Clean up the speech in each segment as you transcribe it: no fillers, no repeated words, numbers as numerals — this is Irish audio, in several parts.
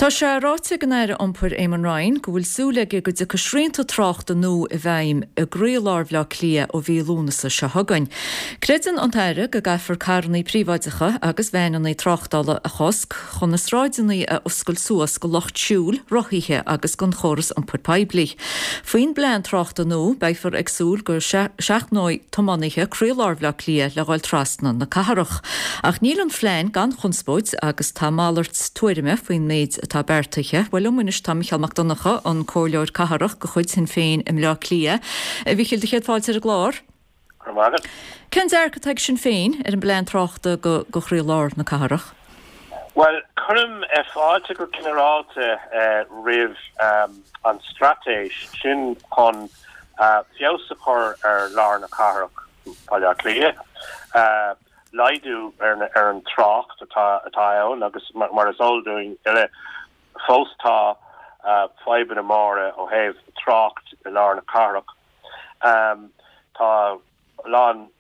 Tá sé ráite ag an Aire Iompair Eamon Ryan go bhfuil súil aige go dtiocfaidh srianta tráchta nua i bhfeidhm i gcroílár Bhaile Átha Cliath ó mhí Lúnasa seo chugainn. Creideann an tAire go gcaithfear carrannaí príobháideacha agus veaineanna tráchtála a chosc chun na sráideanna a oscailt suas go lucht siúil, rothaithe agus don chóras iompair poiblí. Faoin bplean tráchta nua, beifear ag súil go seachnóidh tiománaithe croílár Bhaile Átha Cliath le dhul trasna na cathrach. Ach níl an phlean gan chonspóid agus tá malairt tuairime faoin méid atá beartaithe. Bhuel, liom anois tá Micheál Mac Donncha, an Comhairleoir Cathrach de chuid Shinn Féin i mBleá Cliath. A Mhichíl, do chéad fáilte ar an gclár. Go raibh maith agat. Cén dearcadh atá ag Sinn Féin ar an bplean tráchta go go chroílár na cathrach? Bhuel, cuirim fáilte go ginearálta roimh an straitéis sin chun feabhas a chur ar lár na cathrach, Baile Átha Cliath, laghdú ar an trácht atá ann agus mar is eol dúinn uile, fós tá fadhbanna móra ó thaobh trácht i lár na cathrach. Tá a lán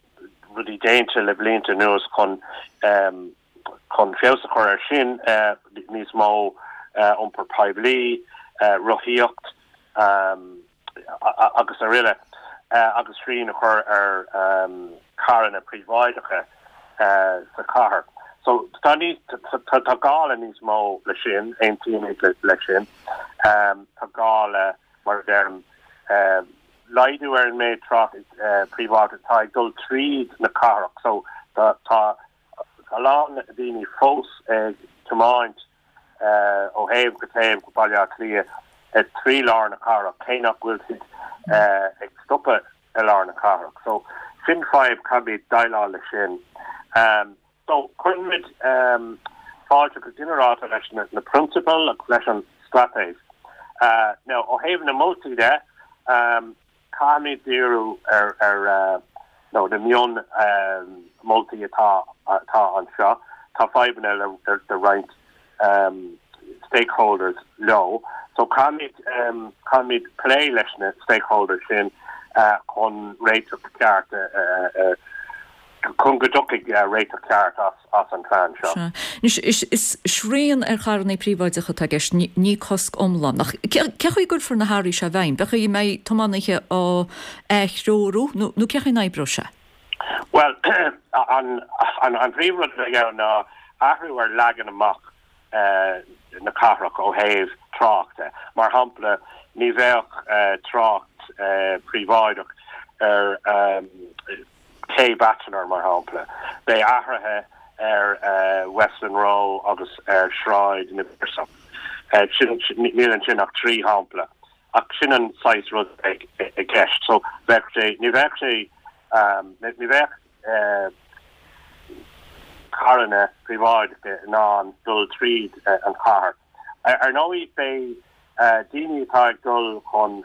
rudaí déanta le blianta anuas chun chun feabhas a chur air sin, níos mó iompar poiblí, rothaíocht agus araile agus srian a chur ar charranna príobháideacha sa chathair. So tá níos tá gá le níos mó le sin, aontaímid le sin. Tá gá le mar a deirim, laghdú ar an méid trácht príobháideach atá ag dul tríd na cathrach. So tá a lán daoine fós ag tiomáint ó thaobh go taobh go Baile Átha Cliath trí lár na cathrach, cé nach bhfuil siad ag stopadh i lár na cathrach. So sin fadhb, caithfimid déileáil leis sin. So cuirimid fáilte go ginearálta leis na prionsabail agus leis an straitéis. Now ó thaobh na moltaí de, caithfimid díriú ar ar nó na mion moltaí atá atá anseo. Tá fadhbanna le le roinnt stakeholders leo. So caithfimid caithfimid plé leis na stakeholders sin chun réiteach ceart a chun go dtiocfaidh réiteach ceart as an phlean seo. Sea. Anois, is srian ar charrannaí príobháideacha atá i gceist, ní cosc iomlán. Ach cé chaoi a gcuirfear na hathruithe seo i bhfeidhm? Cén chaoi a mbeidh tiománaithe á aththreorú nó cé chaoi a n-oibreoidh sé? Bhuel, an príomhrud a bheidh ann ná athrú ar leagan amach na cathrach ó thaobh tráchta. Mar shampla, ní bheadh trácht príobháideach ar Ché Batchelor, mar shampla. Beidh athruithe ar Westland Row agus ar Shráid na bPiarsach. Níl ansin ach 3 shampla. Ach sin an saghas rud a bheidh i gceist. So bheadh sé, ní bheadh sé, ní bheadh carranna príobháideacha in ann dul tríd an chathair. Ar ndóigh beidh daoine atá ag dul chun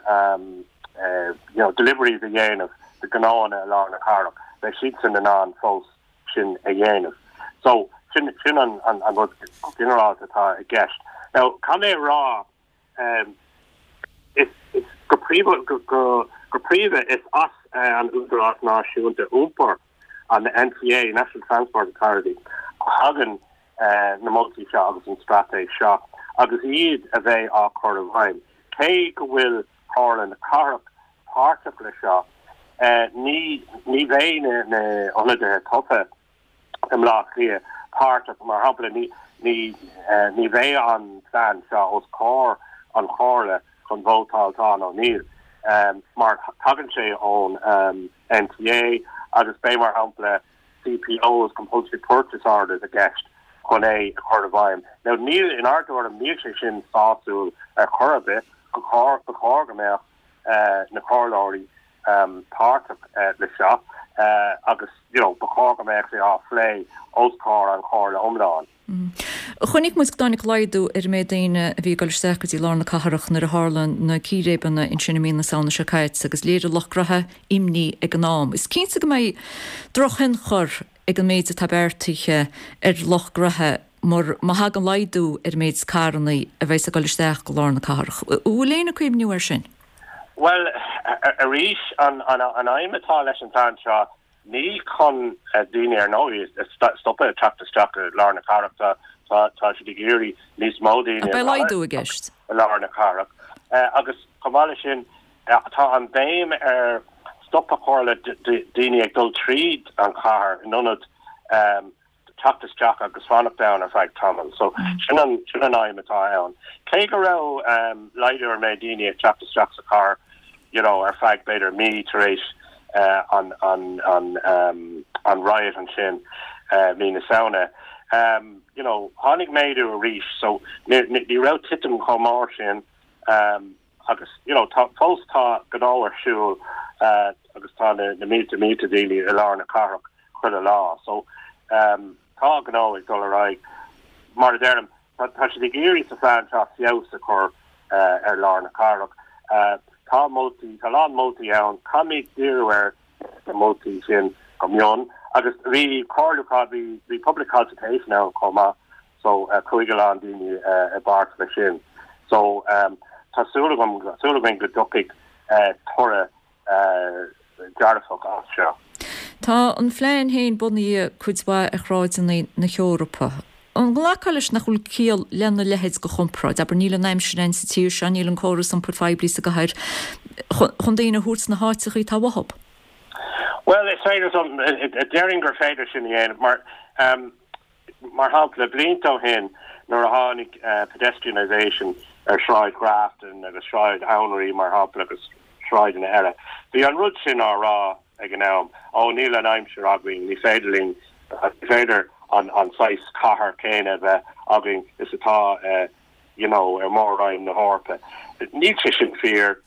you know deliveries a dhéanamh do ghnóanna i lár na cathrach, beidh siadsan in ann fós sin a dhéanamh. So sin sin an an rud go ginearálta atá i gceist. Now caithfidh mé a rá Is go príomha, go príomha is as an Údarás Náisiúnta Iompair, an NTA, National Transport Authority, a thagann na moltaí seo agus an straitéis seo agus iad a bheidh á cur i bhfeidhm. Cé go bhfuil Comhairle na Cathrach páirteach le seo, ní ní bheidh na hionadaithe tofa i mBleá Cliath páirteach, mar shampla, ní ní bheidh an plean seo os comhair an Chomhairle chun vótáil tá nó níl, mar tagann sé ón NTA agus beidh, mar shampla, CPOs, Compulsory Purchase Orders, i gceist chun é a chur i bhfeidhm. Now níl, inár dtuairim, níl sé sin sásúil ar chor ar bith, ba chóir go mbeadh na comhairleoirí páirteach le seo agus you know ba chóir go mbeadh sé á phlé os comhair an chomhairle iomlán. Chonaic muid go dtáinig laghdú ar an méid daoine a bhí ag dul isteach go dtí lár na cathrach nuair a tharla na círéibeanna ansin i mí na Samhna seo caite agus léirigh lucht gnoithe imní ag an am. Is cinnte go mbeidh drochthionchar ag an méid atá beartaithe ar lucht gnoithe mar má thagann laghdú ar an méid carranna a bheas ag dul isteach go lár na cathrach. An bhfuil éinne ag cuimhniú air sin? Bhuel, arís, an aidhm atá leis an bplean seo, ní chun daoine, ar ndóigh, a stopadh ag teacht isteach i lár na cathrach. Tá tá siad ag iarraidh níos mó daoine a Beidh laghdú i gceist. i lár na cathrach. Agus chomh maith leis sin, tá an béim ar stop a chur le daoine ag dul tríd an chathair in ionad teacht isteach agus fanacht ann ar feadh tamaill. So sin an sin an aidhm atá ann. Cé go raibh laghdú ar an méid daoine ag teacht isteach sa chathair you know ar feadh b'fhéidir mí tar éis an an an an riot ansin mí na Samhna you know tháinig méadú arís so ní ní raibh titim chomh mór sin agus you know tá fós tá gnó ar siúl agus tá na na mílte mílte daoine i lár na cathrach chuile lá. So tá gnó ag dul ar aghaidh. Mar a deirim, tá siad ag iarraidh sa phlean seo feabhas a chur ar lár na cathrach. Tá moltaí, tá a lán moltaí ann. Caithfimid díriú ar na moltaí sin go mion. Agus bhí comhairliúchán, bhí bhí public consultation ann chomh maith so chuaigh a lán daoine i bpáirt leis sin. So tá súil agam, súil againn go dtiocfaidh toradh dearfach as seo. Tá an phlean féin bunaithe cuid mhaith ar shráideanna na hEorpa. An nglacfá leis nach bhfuil ciall lena leithéid de chomparáid? Abair, níl an aimsir ann sa tír seo, níl an córas iompair phoiblí sa gcathair chun daoine a thabhairt sna háiteachaí atá uathub. Bhuel, is féidir, déarfainn gur féidir sin a dhéanamh mar, Mar shampla, blianta ó shin nuair a tháinig pedestrianisation ar Shráid Ghrafton agus Sráid Anraí, mar shampla, agus sráideanna eile, bhí an rud sin á rá ag an am, ó níl an aimsir againn, ní féidir linn, ní féidir an saghas cathair céanna a bheith againn is atá you know ar Mhór-Roinn na hEorpa. Níl sé sin fíor.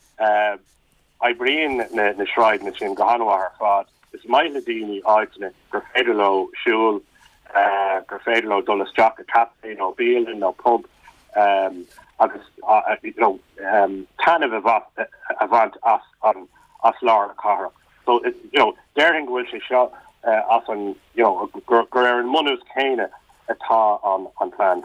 Oibríonn na sráideanna sin go han-mhaith ar fad. Is maith le daoine áiteanna gur féidir leo siúl, gur féidir leo dul isteach i caife nó bialann nó pub agus you know taitneamh a bhaint as an as lár na cathrach. So you know déarfainn go bhfuil sé seo as an you know gur ar an mbunús céanna atá an an plean.